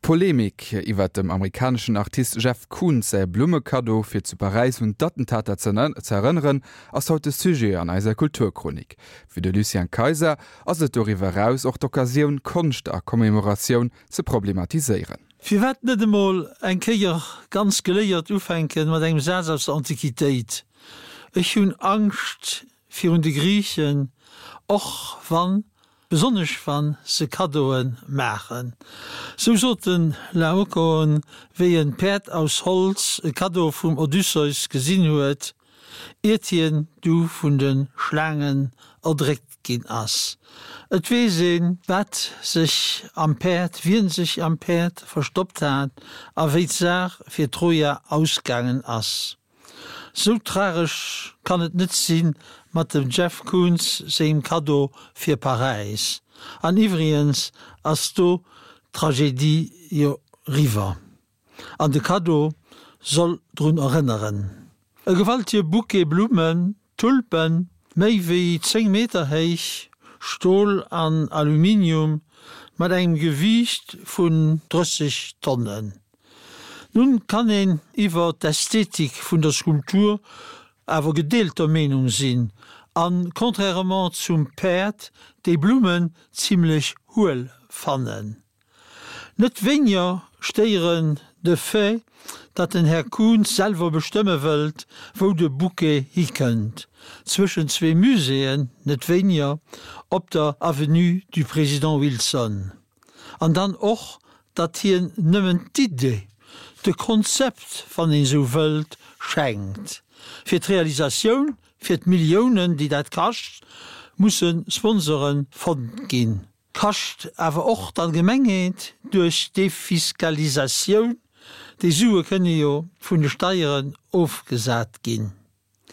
D'Polemik iwwer dem amerikaneschen Artist Jeff Koons säi Blummekaddo fir zu Paräis un d'Attentater ze erënneren, ass haut de Sujet an eiser Kulturchronik. Fir de Lucien Kayser ass et doriwwer eraus och d'Occasioun, Konscht a Commemoratioun ze problematiséieren. Firwat net emol eng Kéier ganz geléiert ufänken mat engem Saz aus der Antiquitéit, Ech hunn Angscht virun de Griichen, och wann, besonnesch wann se Kaddoe maachen. Sou sot de Laokoon, wéi en d'Päerd aus Holz, e Kaddo vum Odysseus, gesinn huet, iert hien du vun de Schlaangen erdréckt ginn ass. Et weess een, wat sech am Päerd, wien sech am Päerd verstoppt hat a wéi d'Saach fir Troja ausgaangen ass. Sou tragesch kann et net sinn mat dem Jeff Koons sengem Kaddo fir Paräis. An iwwrigens ass do d'Tragedie jo riwwer. An de Kaddo soll drun erënneren. E gewaltige Bouquet Blummen, Tulpen, méi wéi 10 Meter héich, Stol an Aluminium, mat engem Gewiicht vun 30 Tonnen. Nun kann een iwwer d'Ästhetik vun der Skulptur awer gedeelter Meenung sinn, an contrairement zum Päerd déi Blummen zimlech huel fannen. Net wéiniger stéieren de Fait, datt den Här Koons selwer bestëmme wëllt, wou de Bouquet hikënnt, zwëschen zwee Muséeën, net wéiniger op der Avenue du Président Wilson. An dann och, datt hien nëmmen d'Idee, de Konzept, wann een esou wëllt, schenkt. Fir d'Realisatioun, fir d'Milliounen, déi dat kascht, musse Sponsore fonnt ginn. Kascht awer och d'Allgemengheet duerch Defiskalisatioun, déi Sue kënne jo vun de Steieren ofgesat ginn.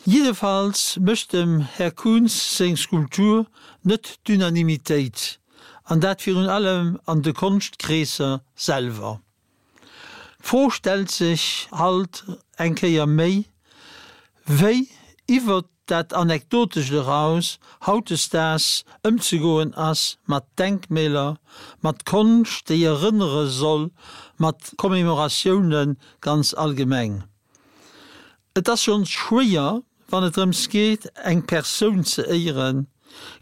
Jiddefalls mécht dem Här Koons seng Skulptur net d'Unanimitéit, an dat virun allem an de Konschtkreesser selwer. D'Fro stellt sech halt eng Kéier méi, wéi iwwert dat Anekdotescht eraus hautdesdaags ëmzegoen ass mat Denkmäler, mat Konscht, déi erënnere soll, mat Commémoratioune ganz allgemeng. Et ass schonns schwéier, wann et drëms geet, eng Persoun ze éieren.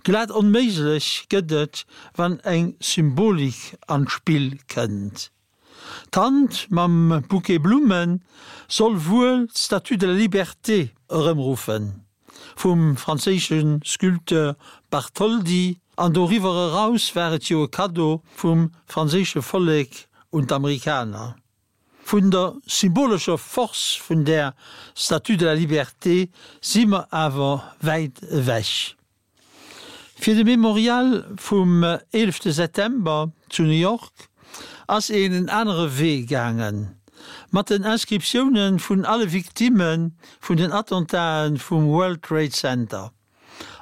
Glat onméiglech gëtt et, wann eng Symbolik an d'Spill kënnt. D'Hand mam Bouquet Blumme soll wuel d'Statue de la Liberté erëmruffen, vum franséische Sculpteur Bartholdi, an doriwwer eraus war et jo e Kaddo vum franséische Vollek un d'Amerikaner. Vun der symbolescher Force vun där Statue de la Liberté si mer awer wäit ewech. Fir de Memorial vum eelefte September zu New York ass een en anere Wee gaangen, mat den Inscriptioune vun alle Victimme vun den Attentae vum World Trade Center.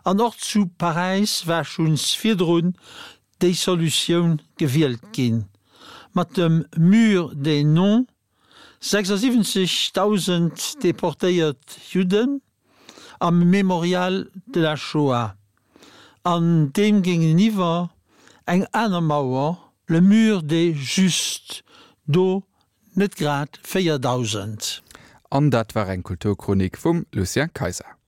An och zu Paräis war schonns virdrun déi Solutioun gewielt ginn, mat dem Mur des noms, 76.000 deportéiert Judden, am Mémorial de la Shoah, an deem géingeniwwer eng aner Mauer, le Mur des Justes, do net grad 4.000. An dat war eng Kulturchronik vum Lucien Kayser.